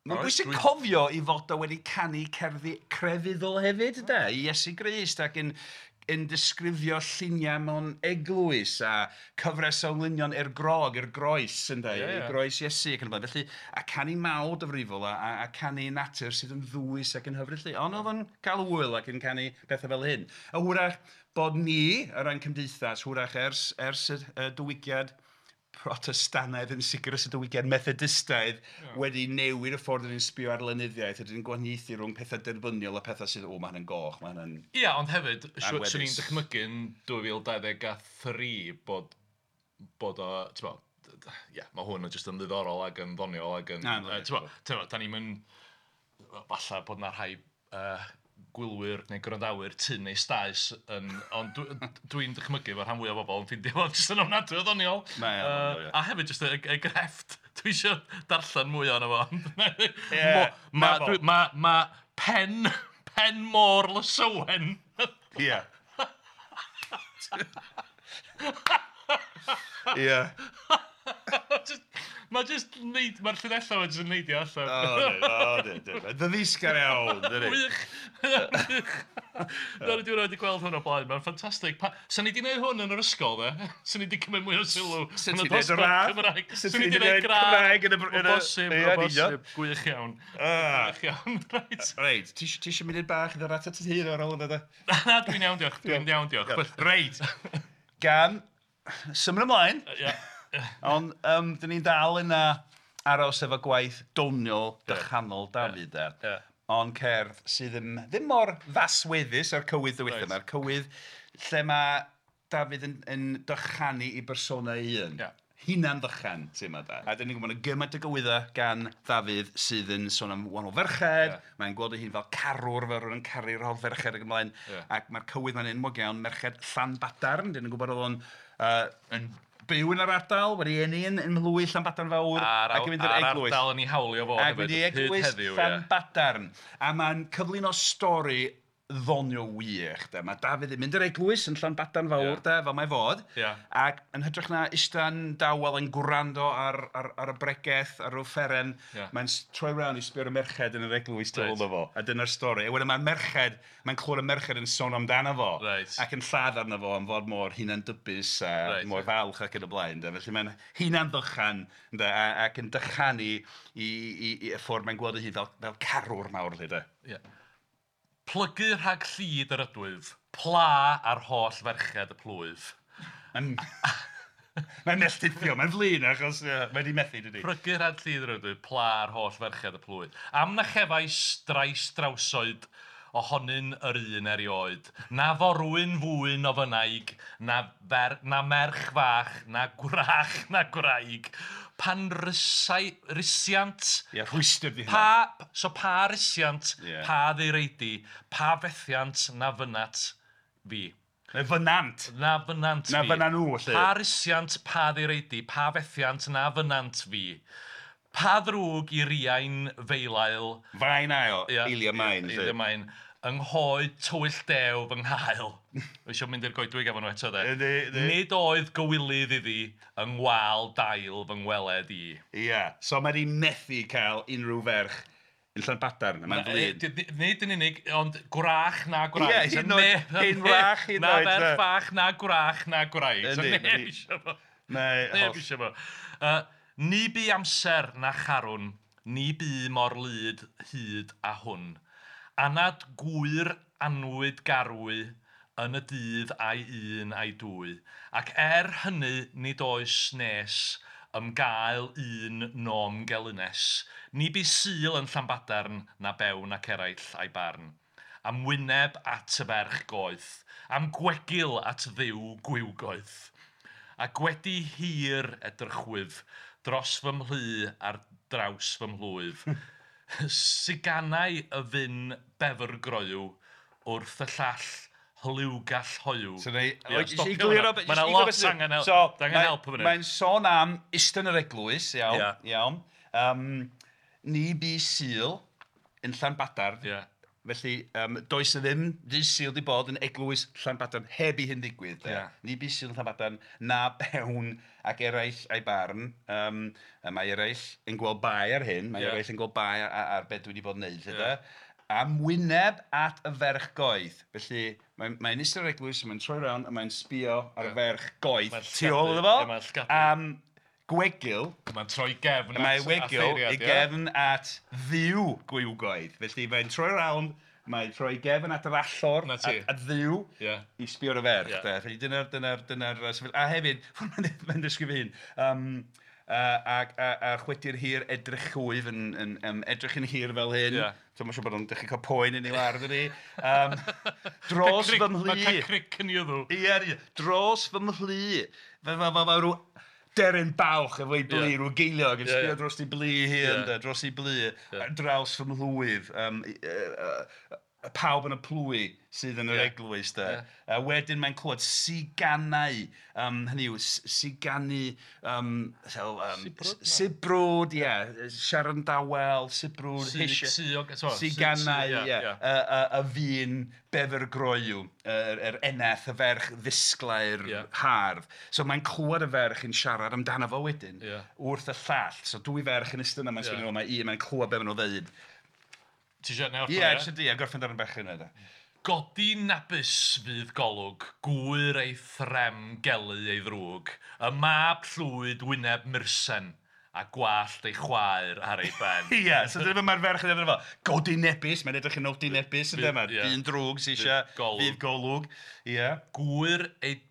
Speaker 2: Mae'n bwysig cofio i fod o wedi canu cerddi crefyddol hefyd, de, i Iesu Grist, ac yn disgrifio lluniau mewn eglwys a cyfres o englynion i'r grog, i'r groes, ynde, i groes Iesu ac yn y blaen. Felly, a canu mawl difrifol a canu natur sydd yn ddwys ac yn hyfryd. Ond oedd o'n cael hwyl ac yn canu pethau fel hyn. A hwyrach bod ni, o ran cymdeithas, hwyrach ers y diwygiad Protestannaidd yn sicr ers y diwygiad Methodistaidd wedi newid y ffordd yn sbio ar lenyddiaeth, ydyn ni'n gwahaniaethu rhwng pethau derbyniol a pethau sydd, o, mae hynny'n goch, mae hynny'n...
Speaker 3: Ia, ond hefyd, swn i'n dychmygu yn 2023 bod o, ti'n bo, ia, mae hwn yn jyst yn ddiddorol ac yn ddoniol ac yn... Ti'n bo, da ni'n mynd, falle bod na rhai gwylwyr neu gwrandawyr tyn neu staes yn, ond dwi'n dychmygu fod rhan fwyaf o bobl yn ffeindio fo jyst yn ofnadwy o ddoniol.
Speaker 2: Mae o'n ddoniol, ie.
Speaker 3: A hefyd jyst y grefft. Dwi eisiau darllen mwy ohono fo.
Speaker 2: Ie,
Speaker 3: Mae pen môr Lysowen.
Speaker 2: Ie. Ie.
Speaker 3: Mae jyst neud, mae'r llinellau jyst yn neidio allan.
Speaker 2: O, di, di. Mae'n ddyddisgar iawn, dydi.
Speaker 3: Wych! Wych! Na, dwi wedi gweld hwn o blaen, mae'n ffantastig. Sa'n ni wedi gwneud hwn yn yr ysgol, de? Sa'n ni wedi cymryd mwy o sylw
Speaker 2: Sa'n
Speaker 3: yn y
Speaker 2: ti 'di neud
Speaker 3: dosbarth
Speaker 2: radd?
Speaker 3: Cymraeg.
Speaker 2: Sa'n
Speaker 3: Sa'n
Speaker 2: ti
Speaker 3: ni
Speaker 2: 'di
Speaker 3: wedi gwneud
Speaker 2: neud Cymraeg yn y
Speaker 3: O
Speaker 2: yn y-
Speaker 3: bosib,
Speaker 2: Ie,
Speaker 3: o
Speaker 2: yn union.
Speaker 3: bosib. Gwych iawn.
Speaker 2: Ah.
Speaker 3: Gwych iawn, reit.
Speaker 2: Reit, ti isio mynd bach i ddod atat ti hun ar ôl yna, de?
Speaker 3: Na, dwi'n iawn, diolch. Dwi'n iawn, diolch.
Speaker 2: Reit, gan symud ymlaen,
Speaker 3: Ie.
Speaker 2: ond dyn ni'n dal yna aros efo gwaith doniol dychanol Dafydd, de.
Speaker 3: Ie.
Speaker 2: Ond cerdd sydd ddim mor fasweddus â'r cywydd ddiwetha.
Speaker 3: Reit.
Speaker 2: Mae'r cywydd lle mae Dafydd yn dychanu i bersona ei hun.
Speaker 3: Ie.
Speaker 2: Hunan ddychan, ti'n ma da. A dyn ni'n gwybod yna gymaint o gywyddau gan Ddafydd sydd yn sôn am wahanol ferched.
Speaker 3: Ie.
Speaker 2: Mae'n gweld ei hun fel carwr, fel rhywun yn caru'r holl ferched ac ymlaen.
Speaker 3: Ie.
Speaker 2: Ac mae'r cywydd ma'n enwog iawn, merched Llanbadarn. Dyn ni'n gwybod oedd o'n yn byw yn yr ardal, wedi eni yn mhlwy Llanbadarn Fawr.
Speaker 3: A'r
Speaker 2: ac yn mynd i'r eglwys.
Speaker 3: ardal yn ei hawlio fo
Speaker 2: Ac mynd i
Speaker 3: hefyd, hyd
Speaker 2: eglwys
Speaker 3: heddiw, ie.
Speaker 2: Llanbadarn. A mae'n cyflwyno stori ddoniol wych. De. Mae Dafydd yn mynd i'r eglwys yn Llanbadarn Fawr,
Speaker 3: Ie.
Speaker 2: de, fel mae fod.
Speaker 3: Ie.
Speaker 2: Ac yn hytrach na ista'n dawel yn gwrando ar y bregeth, ar yr offeren,
Speaker 3: Ie.
Speaker 2: mae'n troi round i sbio ar y merched yn yr eglwys tu ôl
Speaker 3: Reit.
Speaker 2: iddo fo. A dyna'r stori. A wedyn mae'r merched, mae'n clywed y merched yn sôn amdano fo.
Speaker 3: Reit.
Speaker 2: Ac yn lladd arno fo am fod mor hunandybus a
Speaker 3: Reit.
Speaker 2: mor falch ac yn y blaen. De. Felly mae'n hunan-ddychan ynde, ac yn dychanu i y ffordd mae'n gweld ei hun fel carwr mawr. Lle, de.
Speaker 3: Ie. Plygu rhag llid yr ydwyf, pla ar holl ferched y plwyf.
Speaker 2: Mae'n mae'n melltithio, mae'n flin achos mae wedi methu, dydi.
Speaker 3: Plygu rhag llid yr ydwyf, pla ar holl ferched y plwyf. Am na chefais drais drawsoed ohonyn yr un erioed. Na forwyn fwyn o fynaig, na merch fach, na gwrach, na gwraig. Pan risiant...
Speaker 2: Ie, rhwystr di hynna.
Speaker 3: Pa, so pa risiant,
Speaker 2: Ie.
Speaker 3: pa ddireidi, pa fethiant na fynat fi.
Speaker 2: Neu fynant.
Speaker 3: Na fynant
Speaker 2: Na
Speaker 3: fi.
Speaker 2: fynna nhw, felly.
Speaker 3: Pa risiant, pa ddireidi, pa fethiant na fynant fi. Pa ddrwg i riain feilael.
Speaker 2: Fain ail,
Speaker 3: Ia,
Speaker 2: eilia main.
Speaker 3: Eilia
Speaker 2: felly.
Speaker 3: main. Yng nghoed tywyll dew fy nghael. Dwi eisiau mynd i'r goedwig efo nhw eto, de.
Speaker 2: Yndi, yndi.
Speaker 3: Nid oedd gywilydd iddi yng ngwal dail fy ngweled i.
Speaker 2: Ie, so mae wedi methu cael unrhyw ferch yn Llanbadarn, a mae'n flin.
Speaker 3: Nid yn unig, ond gwrach na gwraig.
Speaker 2: Ie, hyd yn oed- hyn wrach, hyd yn
Speaker 3: Na
Speaker 2: oed,
Speaker 3: ferch
Speaker 2: de.
Speaker 3: fach, na gwrach, na gwraig. So
Speaker 2: Yndi,
Speaker 3: neb
Speaker 2: ma' di-
Speaker 3: isio fo.
Speaker 2: Mae
Speaker 3: Neb
Speaker 2: holl-
Speaker 3: isio fo. Ni bu amser na charwn, ni bu mor lyd hyd a hwn. Anad gwyr anwyd garwy yn y dydd a'i un a'i dwy. Ac er hynny nid oes nes ymgael un nom gelynes. Ni bu Sul yn Llanbadarn na bewn ac eraill a'i barn. Am wyneb at y ferch goeth, am gwegil at ddiw gwiwgoeth. A gwedi hir edrychwyf dros fy mhlu ar draws fy mhlwyf. Siganau y fyn befrgroyw wrth y llall hliwgall hoyw.
Speaker 2: So neu,
Speaker 3: Ie,
Speaker 2: jyst i
Speaker 3: stopio
Speaker 2: gliro
Speaker 3: hwnna.
Speaker 2: be-
Speaker 3: Ma'
Speaker 2: jyst
Speaker 3: 'na
Speaker 2: i
Speaker 3: lot
Speaker 2: gliro beth sy'n-
Speaker 3: angen
Speaker 2: So,
Speaker 3: angen help yn fan hyn.
Speaker 2: Mae'n sôn am isten yr eglwys, iawn.
Speaker 3: Ie.
Speaker 2: Iawn. Ni bu Sul yn Llanbadarn.
Speaker 3: Ie.
Speaker 2: Felly, does na ddim dydd Sul 'di bod yn eglwys Llanbadarn heb i hyn ddigwydd. De.
Speaker 3: Ie.
Speaker 2: Ni bu Sul yn Llanbadarn, na bewn ac eraill a'i barn. A mae eraill yn gweld bai ar hyn, mae
Speaker 3: Ie.
Speaker 2: eraill yn gweld bai ar beth dwi wedi bod yn neud. Lle,
Speaker 3: Ie.
Speaker 2: de. Am wyneb at y ferch goeth. Felly, mae'n eistedd yr eglwys, mae'n troi round a mae'n sbio ar y
Speaker 3: Ie.
Speaker 2: ferch goeth
Speaker 3: Mae'n
Speaker 2: tu ôl iddo fo.
Speaker 3: llygadu, ie, mae'n llygadu.
Speaker 2: Am gwegil,
Speaker 3: Mae'n troi gefn
Speaker 2: mae
Speaker 3: at
Speaker 2: wegil
Speaker 3: offeiriad,
Speaker 2: i
Speaker 3: ie?
Speaker 2: gefn at ddiw gwiwgoedd. Felly mae'n troi round, mae'n troi gefn at yr allor,
Speaker 3: Na ti.
Speaker 2: at ddiw,
Speaker 3: Ie.
Speaker 2: i sbio ar y ferch.
Speaker 3: Ie.
Speaker 2: De. Felly dyna'r sefyllfa. A hefyd, mae'n disgrifio hyn, a chwedi'r hir edrych chwyf yn edrych yn hir fel hyn.
Speaker 3: Ie.
Speaker 2: So mae'n siŵr bod o'n dechrau cael poen yn ei war, dydi. Dros fy mhlu.
Speaker 3: Mae'n cael cric yn ei wddw.
Speaker 2: Ie, ie. Dros fy mhlu. Fel rhyw deryn balch efo'i blu,
Speaker 3: Ie.
Speaker 2: rhyw geiliog yn
Speaker 3: Ie,
Speaker 2: sbio
Speaker 3: ie.
Speaker 2: dros ei blu hi,
Speaker 3: Ie.
Speaker 2: ynde, dros ei blu, ar draws fy mhlwyf. pawb yn y plwy sydd yn yr eglwys de. A wedyn mae'n clywed siganau, hynny yw, siganu, sibrwd, ie, siarad yn dawel, sibrwd, siganau, ie, y fun befergroyw, yr eneth, y ferch ddisglair hardd. So mae'n clywed y ferch yn siarad amdano fo wedyn, wrth y llall. So dwy ferch yn ystod yna, mae'n sgwennu, mae un, mae'n clywed be maen nhw'n ddeud.
Speaker 3: Ti eisiau neu orffen?
Speaker 2: Ie, eisiau di, a gorffen darn bach yna.
Speaker 3: Godi nabus fydd golwg, gwyr ei threm gelu ei ddrwg, y mab llwyd wyneb mursen, a gwallt ei chwaer ar ei ben.
Speaker 2: Ie, so dyna mae'r ferch yn edrych fel, godi nebus, mae'n edrych yn odi nebus, yn dyma, dyn drwg sy'n eisiau, fydd golwg. Ie.
Speaker 3: Gwyr ei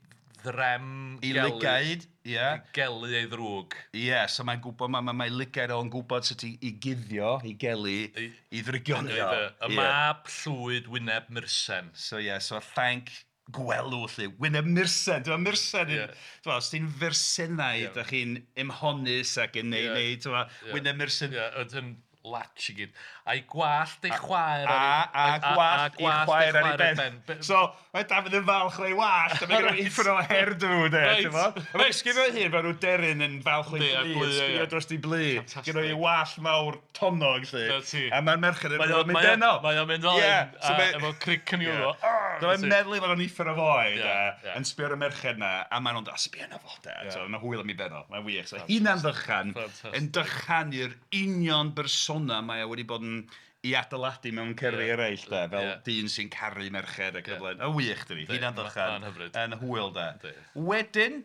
Speaker 3: ddrem
Speaker 2: gelu. I lygaid, ie.
Speaker 3: Gelu ei ddrwg.
Speaker 2: Ie, so mae'n gwybod, mae lygaid o'n gwybod sut i guddio, i gelu, i ddrygionio.
Speaker 3: Y mab llwyd wyneb mursen.
Speaker 2: So ie, so llanc gwelw, lle, wyneb mursen. Dwi'n mursen, dwi'n os ti'n fersenau, ydych chi'n ymhonus ac yn neud, dwi'n wyneb mursen.
Speaker 3: Ie, yn latch i gyd. A'i gwallt ei chwaer
Speaker 2: ar ei... A gwallt ei chwaer ar ei ben. So, mae Dafydd yn falch o'i wallt, a mae gen i'n uffern o hairdo, de, ti'n mo? A mae'n sgifio hun fel rhyw deryn yn falch o'i blu, sgifio dros ei blu. Gen o'i wallt mawr tonnog, lle. A mae'r merched yn mynd ben o.
Speaker 3: Mae o'n mynd fel hyn, efo cric yn i'w.
Speaker 2: Mae'n meddwl fod o'n uffern o foi, de, yn sbio ar y merched na, a maen nhw'n dod, sbio na fo, de. Mae'n hwyl am ei ben o, mae'n wych. So, hunan ddychan, yn dychanu'r union bersona mae o wedi bod yn i adeiladu mewn cerddi eraill de, fel dyn sy'n caru merched ac yn y blaen. Y wych dydi, hunan ddychan, yn hwyl de. Wedyn,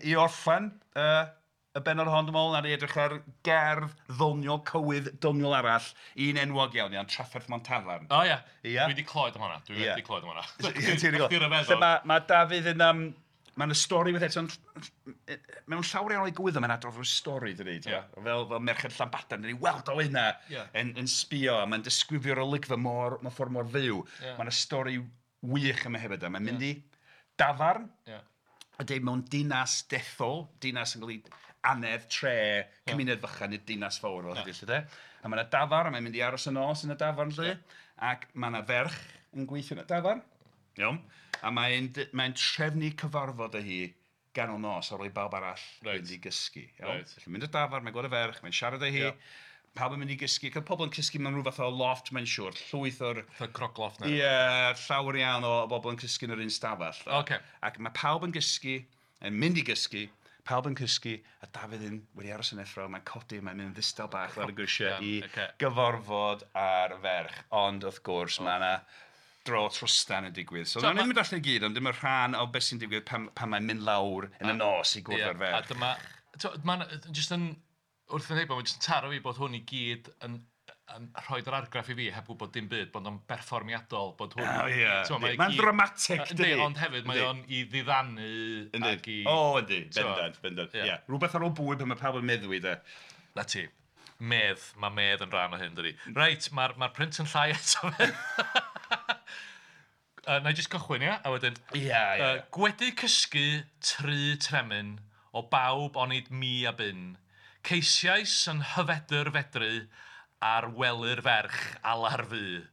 Speaker 2: i orffen y bennod hon, dwi'n meddwl, nawn ni edrych ar gerdd ddoniol, cywydd doniol arall, un enwog iawn, iawn, Trafferth Mewn Tafarn.
Speaker 3: O ia, dwi wedi clywed am hwnna, dwi wedi clywed am hwnna.
Speaker 2: Mae Dafydd yn... Mae'n y stori with eto, mewn llawer iawn o'i gwyddo, mae'n adrodd rhyw stori, dydi, fel merched Llanbadarn, dyn ni weld o yna yn sbio, a mae'n disgrifio'r olygfa mor, mewn ffordd mor fyw. Mae'n y stori wych yma hefyd, mae'n mynd i dafarn, a deud mewn dinas dethol, dinas yn cael ei anedd, tre, cymuned fychan, nid dinas fawr fel hynny, lle, de. A mae'n y dafarn, a mae'n mynd i aros y nos yn y dafarn, lle, ac mae yna ferch yn gweithio yn y dafarn. Iawn. A mae'n trefnu cyfarfod â hi ganol nos ar ôl i bawb arall mynd i gysgu. Iawn? Felly mynd i'r dafarn, mae'n gweld y ferch, mae'n siarad â hi, pawb yn mynd i gysgu. Cael pobl yn cysgu mewn rhyw fath o loft, mae'n siŵr, llwyth o'r...
Speaker 3: Fatha crogloft neu?
Speaker 2: Ie, llawer iawn o bobl yn cysgu yn yr un stafell. Ac mae pawb yn gysgu, yn mynd i gysgu, pawb yn cysgu, a Dafydd yn wedi aros yn effro, mae'n codi, mae'n mynd yn ddistaw bach lawr y grisiau i gyfarfod â'r ferch. Ond wrth gwrs, mae yna dro trwstan yn digwydd. So, nawn ni'n mynd allan i gyd, ond dim y rhan o beth sy'n digwydd pan mae'n mynd lawr yn y nos i gwrdd â'r ferch.
Speaker 3: A dyma, mae'n jyst yn, wrth yn heibio, mae'n jyst yn taro fi bod hwn i gyd yn rhoi'r argraff i fi heb gwybod dim byd, bod o'n berfformiadol, bod hwn...
Speaker 2: O ie, mae'n dramatic, dydi?
Speaker 3: Ond hefyd, mae o'n i ddiddanu ac i...
Speaker 2: O, yndi, bendant, bendant, ie. Rhywbeth ar ôl bwyd pan mae pawb yn meddwi, de.
Speaker 3: Na ti. Medd, mae medd yn rhan o hyn, dydi. Reit, mae'r print yn llai eto fe. Na i jyst cychwyn, ia? A wedyn...
Speaker 2: Ia, ia.
Speaker 3: Gwedi cysgu tri tremyn o bawb onid mi a byn. Ceisiais yn hyfedr fedru ar wely'r ferch alar fu.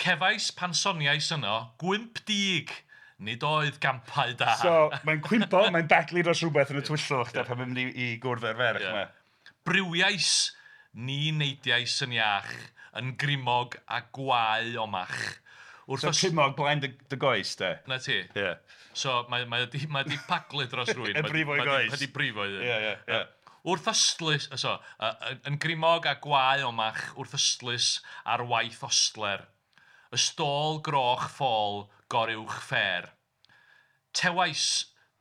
Speaker 3: Cefais pan soniais yno, gwymp dig, nid oedd gampau da.
Speaker 2: So, mae'n cwympo, mae'n baglu dros rhywbeth yn y twyllwch, da, pan mae'n mynd i gwrdd â'r ferch. Yeah.
Speaker 3: Briwiais, ni neidiais yn iach, yn grimog a gwae omach.
Speaker 2: So crimog blaen dy goes, de?
Speaker 3: Na ti.
Speaker 2: Yeah.
Speaker 3: So mae di paglu dros rwy'n.
Speaker 2: Yn brifo i goes.
Speaker 3: Mae di brifo i.
Speaker 2: Ie, ie, ie.
Speaker 3: Wrth ystlys, so, yn grimog a gwae omach, wrth ystlys ar waith ostler. Y stôl groch ffôl goruwch ffer. Tewais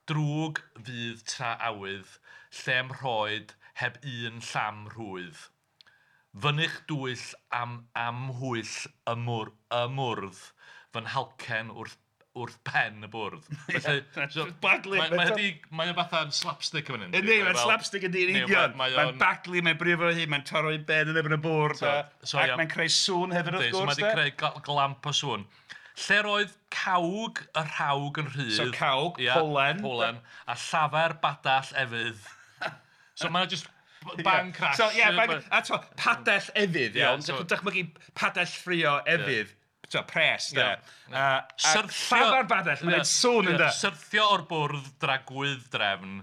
Speaker 3: drwg fydd tra awydd, lle'm rhoed heb un llam rhwydd. Fynych dwyll am amhwyll y mwrdd, fy nhalcen wrth pen y bwrdd. Felly, so,
Speaker 2: baglu.
Speaker 3: Mae o fatha'n slapstick yn fan hyn.
Speaker 2: Yndi, mae'n slapstick yn dyn union. Mae'n baglu, mae'n brifo hi, mae'n taro i ben yn erbyn y bwrdd. Ac mae'n creu sŵn hefyd wrth gwrs.
Speaker 3: So mae wedi creu glamp o sŵn. Lle'r oedd cawg y rhawg yn rhydd.
Speaker 2: So cawg, polen.
Speaker 3: Polen, a llafer badall efydd. So mae'n just... Bang crash.
Speaker 2: So, yeah, bang, a to, padell efydd, iawn. So, dychmygu padell ffrio efydd. pres, de.
Speaker 3: Syrthio...
Speaker 2: Llafar badell, mae'n gwneud sŵn ynde.
Speaker 3: Syrthio o'r bwrdd dragwydd drefn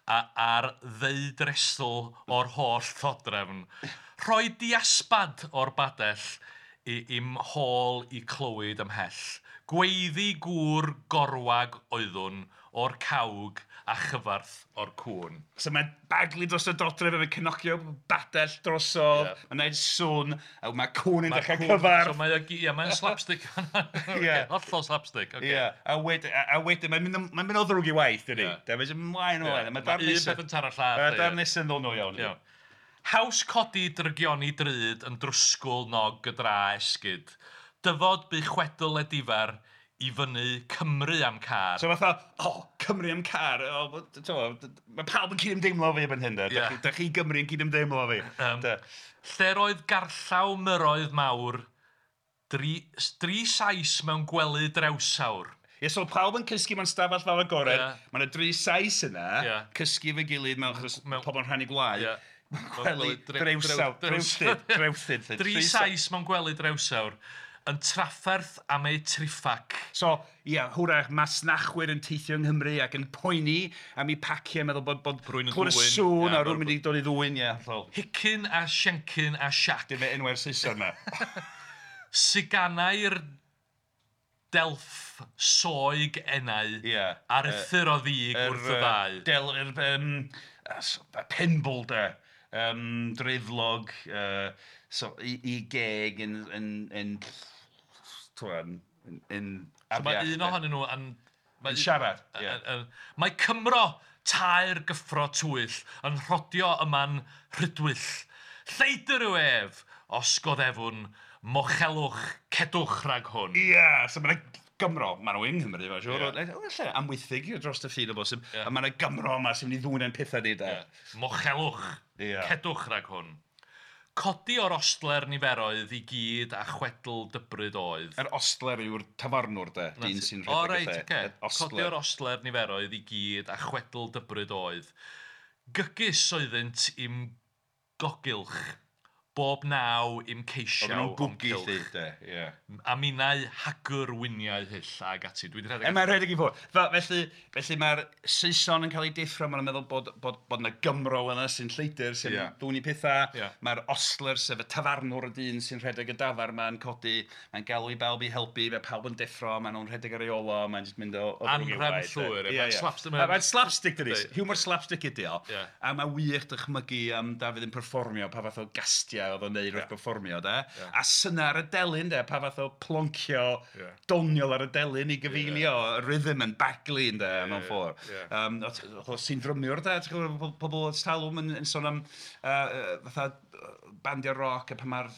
Speaker 3: a ar ddeudresl o'r holl ddodrefn. Rhoi diasbad o'r badell i'm hôl i clywed ymhell. Gweiddi gŵr gorwag oeddwn o'r cawg a chyfarth o'r cŵn.
Speaker 2: So mae'n baglu dros y dodrefn, mae'n cnocio badell drosodd, mae'n gwneud sŵn, a mae cŵn yn dechrau cyfarth.
Speaker 3: So mae'n slapstick.
Speaker 2: Ie.
Speaker 3: Hollol slapstick. Okay.
Speaker 2: Ie, a wedyn, mae'n mynd o ddrwg i waith, dydy. Mae'n mynd ymlaen o ymlaen.
Speaker 3: Mae un peth yn taro llall.
Speaker 2: Mae'r darn nesaf yn ddoniol iawn.
Speaker 3: Iawn. Haws codi drygioni drud yn drwsgwl nog y dra esgyd. Dyfod bu chwedl edifar i fyny Cymru am car.
Speaker 2: So fatha, Cymru am car. Mae pawb yn cydymdeimlo fi erbyn hyn, de. Da chi Gymru yn cydymdeimlo fi.
Speaker 3: Lle'r oedd garllaw myroedd mawr, dri Sais mewn gwely drewsawr.
Speaker 2: Ie, so pawb yn cysgu mewn stafell fawr agored. Mae yna dri Sais yna, cysgu efo'i gilydd mewn achos pobl yn rhannu gwlau. Gwely drewsawr, drewthyd.
Speaker 3: Dri Sais mewn gwely drewsawr yn trafferth am eu triffac.
Speaker 2: So, ie, hwrach masnachwyr yn teithio yng Nghymru ac yn poeni am eu paciau, meddwl bod
Speaker 3: Rwy'n yn
Speaker 2: clywed y
Speaker 3: ddwyn.
Speaker 2: sŵn a rwy'n mynd i dod i ddwyn, ie. Hollol.
Speaker 3: Hicyn a Siencyn a Siac.
Speaker 2: Dim enwau'r Saeson yma.
Speaker 3: Siganau'r delff soeg enau.
Speaker 2: Ie.
Speaker 3: Aruthr o ddig wrth y ddau.
Speaker 2: Del, Penbwl, de. Dreiflog, so, i geg yn
Speaker 3: So mae un ohonyn nhw yn...
Speaker 2: Yn siarad.
Speaker 3: Mae Cymro tair gyffro twyll yn rhodio yma'n rhydwyll. Lleidr yw ef, os goddefwn, mochelwch, cedwch rhag hwn.
Speaker 2: Ie, so mae'n Gymro, maen nhw yng Nghymru, mae'n siŵr. Lle, Amwythig dros y ffin o bosib. A mae yna Gymro yma sy'n mynd i ddwyn ein pethau ni, de.
Speaker 3: Mochelwch, cedwch rhag hwn. Codi o'r ostler niferoedd i gyd a chwedl dybryd oedd.
Speaker 2: Yr ostler yw'r tafarnwr, de, dyn sy'n rhedeg y lle.
Speaker 3: O, reit, oce. Codi o'r ostler niferoedd i gyd a chwedl dybryd oedd. Gygus oeddynt i'm gogylch, bob naw i'm ceisiau o'm cylch. A minnau hagwr wyniau hyll ag ati. Dwi 'di rhedeg.
Speaker 2: Mae'n rhedeg i ffwrdd. Felly mae'r Saeson yn cael ei deffro, maen nhw'n meddwl bod yna Gymro yna sy'n lleidr, sy'n dwyn i pethau. Mae'r ostler, sef y tafarnwr y dyn sy'n rhedeg y dafar ma'n codi, mae'n galw i bawb i helpu, mae pawb yn deffro, maen nhw'n rhedeg ar ei ôl o, mae'n jyst mynd o ddrwg i'w waith.
Speaker 3: Anhrefn llwyr.
Speaker 2: Mae'n slapstick, dydi. Humor slapstick ydi o. A mae wych dychmygu am Dafydd yn perfformio, pa fath o gastiau oedd o'n neud wrth perfformio, de. A syna ar y delyn, de, pa fath o ploncio doniol ar y delyn i gyfeilio, y rhythm yn baglu, de, mewn ffordd. Sy'n ddrymiwr, de, ti'n gwybod, pobl o talwm yn sôn am fatha bandiau roc a pan mae'r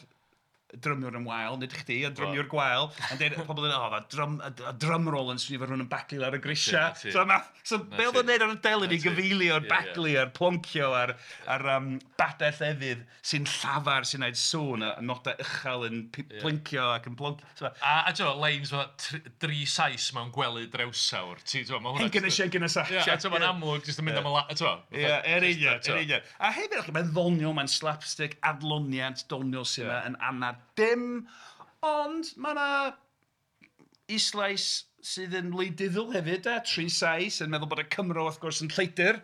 Speaker 2: drymiwr yn wael, nid chdi, a drymiwr gwael, a'n dweud, pobl yn dweud, a drum roll yn swnio fel rhywun yn baglu ar y grisiau. So, be oedd o'n neud ar y delyn i gyfeilio, a'r baglu, a'r ploncio, a'r badell efydd sy'n llafar, sy'n neud sŵn, a nodau uchel yn plincio ac yn ploncio.
Speaker 3: A ti'n gwybod, lines fel dri Sais mewn gwely drewsawr.
Speaker 2: Hencyn a Siencyn a Sac.
Speaker 3: Ie, a ti'n gwybod, mae'n amlwg, jyst yn mynd am y la...
Speaker 2: Ie, er union, er union. A hefyd, mae'n ddoniol, mae'n slapstick, adloniant, doniol sy'n yma yn anad dim, ond mae yna islais sydd yn wleidyddol hefyd, de, tri Sais yn meddwl bod y Cymro wrth gwrs yn lleidr.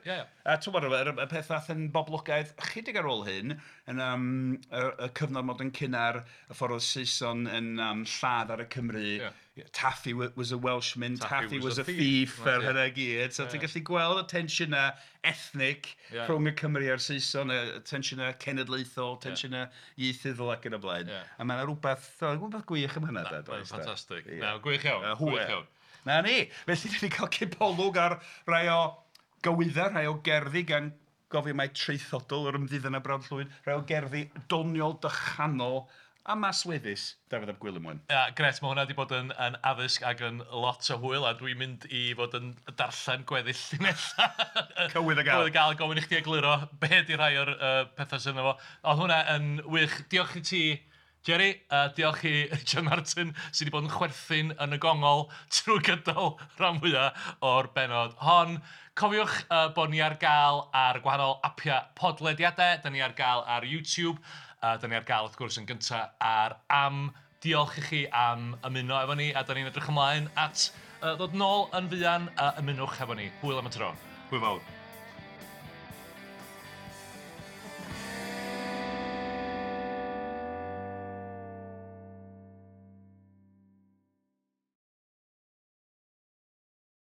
Speaker 2: A ti'n gwybod, y peth ddaeth yn boblogaidd chydig ar ôl hyn, yn y cyfnod modern cynnar, y ffordd oedd Saeson yn lladd ar y Cymru. Taffy was a Welshman, Taffy was a thief, a'r hynna gyd. So ti'n gallu gweld y tensiynau ethnic rhwng y Cymru a'r Saeson, y tensiynau cenedlaethol, tensiynau ieithyddol ac yn y blaen. A mae yna rhywbeth gwych am hynna.
Speaker 3: Mae'n ffantastig. Na, gwych iawn, gwych iawn.
Speaker 2: Na ni. Felly, ni wedi cael cipolwg ar rai o gywyddau, rhai o gerddi gan gofio mai traethodol yr ymddiddan a Brawd Llwyd, rhai o gerddi doniol, dychanol a masweddus Dafydd ap Gwilym Wyn.
Speaker 3: Ia, gret, mae hwnna wedi bod yn addysg ac yn lot o hwyl, a dwi'n mynd i fod yn darllen gweddill llinellau.
Speaker 2: Cywydd y gael.
Speaker 3: Cywydd y gael, gofyn i chdi egluro be di rhai o'r pethau sydd yno fo. Oedd hwnna yn wych. Diolch i ti, Jerry, diolch i Richard Martin sydd wedi bod yn chwerthin yn y gongol trwy gydol rhan fwyaf o'r bennod hon. Cofiwch bod ni ar gael ar gwahanol apiau podlediadau, da ni ar gael ar YouTube, da ni ar gael wrth gwrs yn gyntaf ar Am. Diolch i chi am ymuno efo ni, a da ni'n edrych ymlaen at ddod nôl yn fuan a ymunwch efo ni. Hwyl am y tro.
Speaker 2: Hwyl fawr.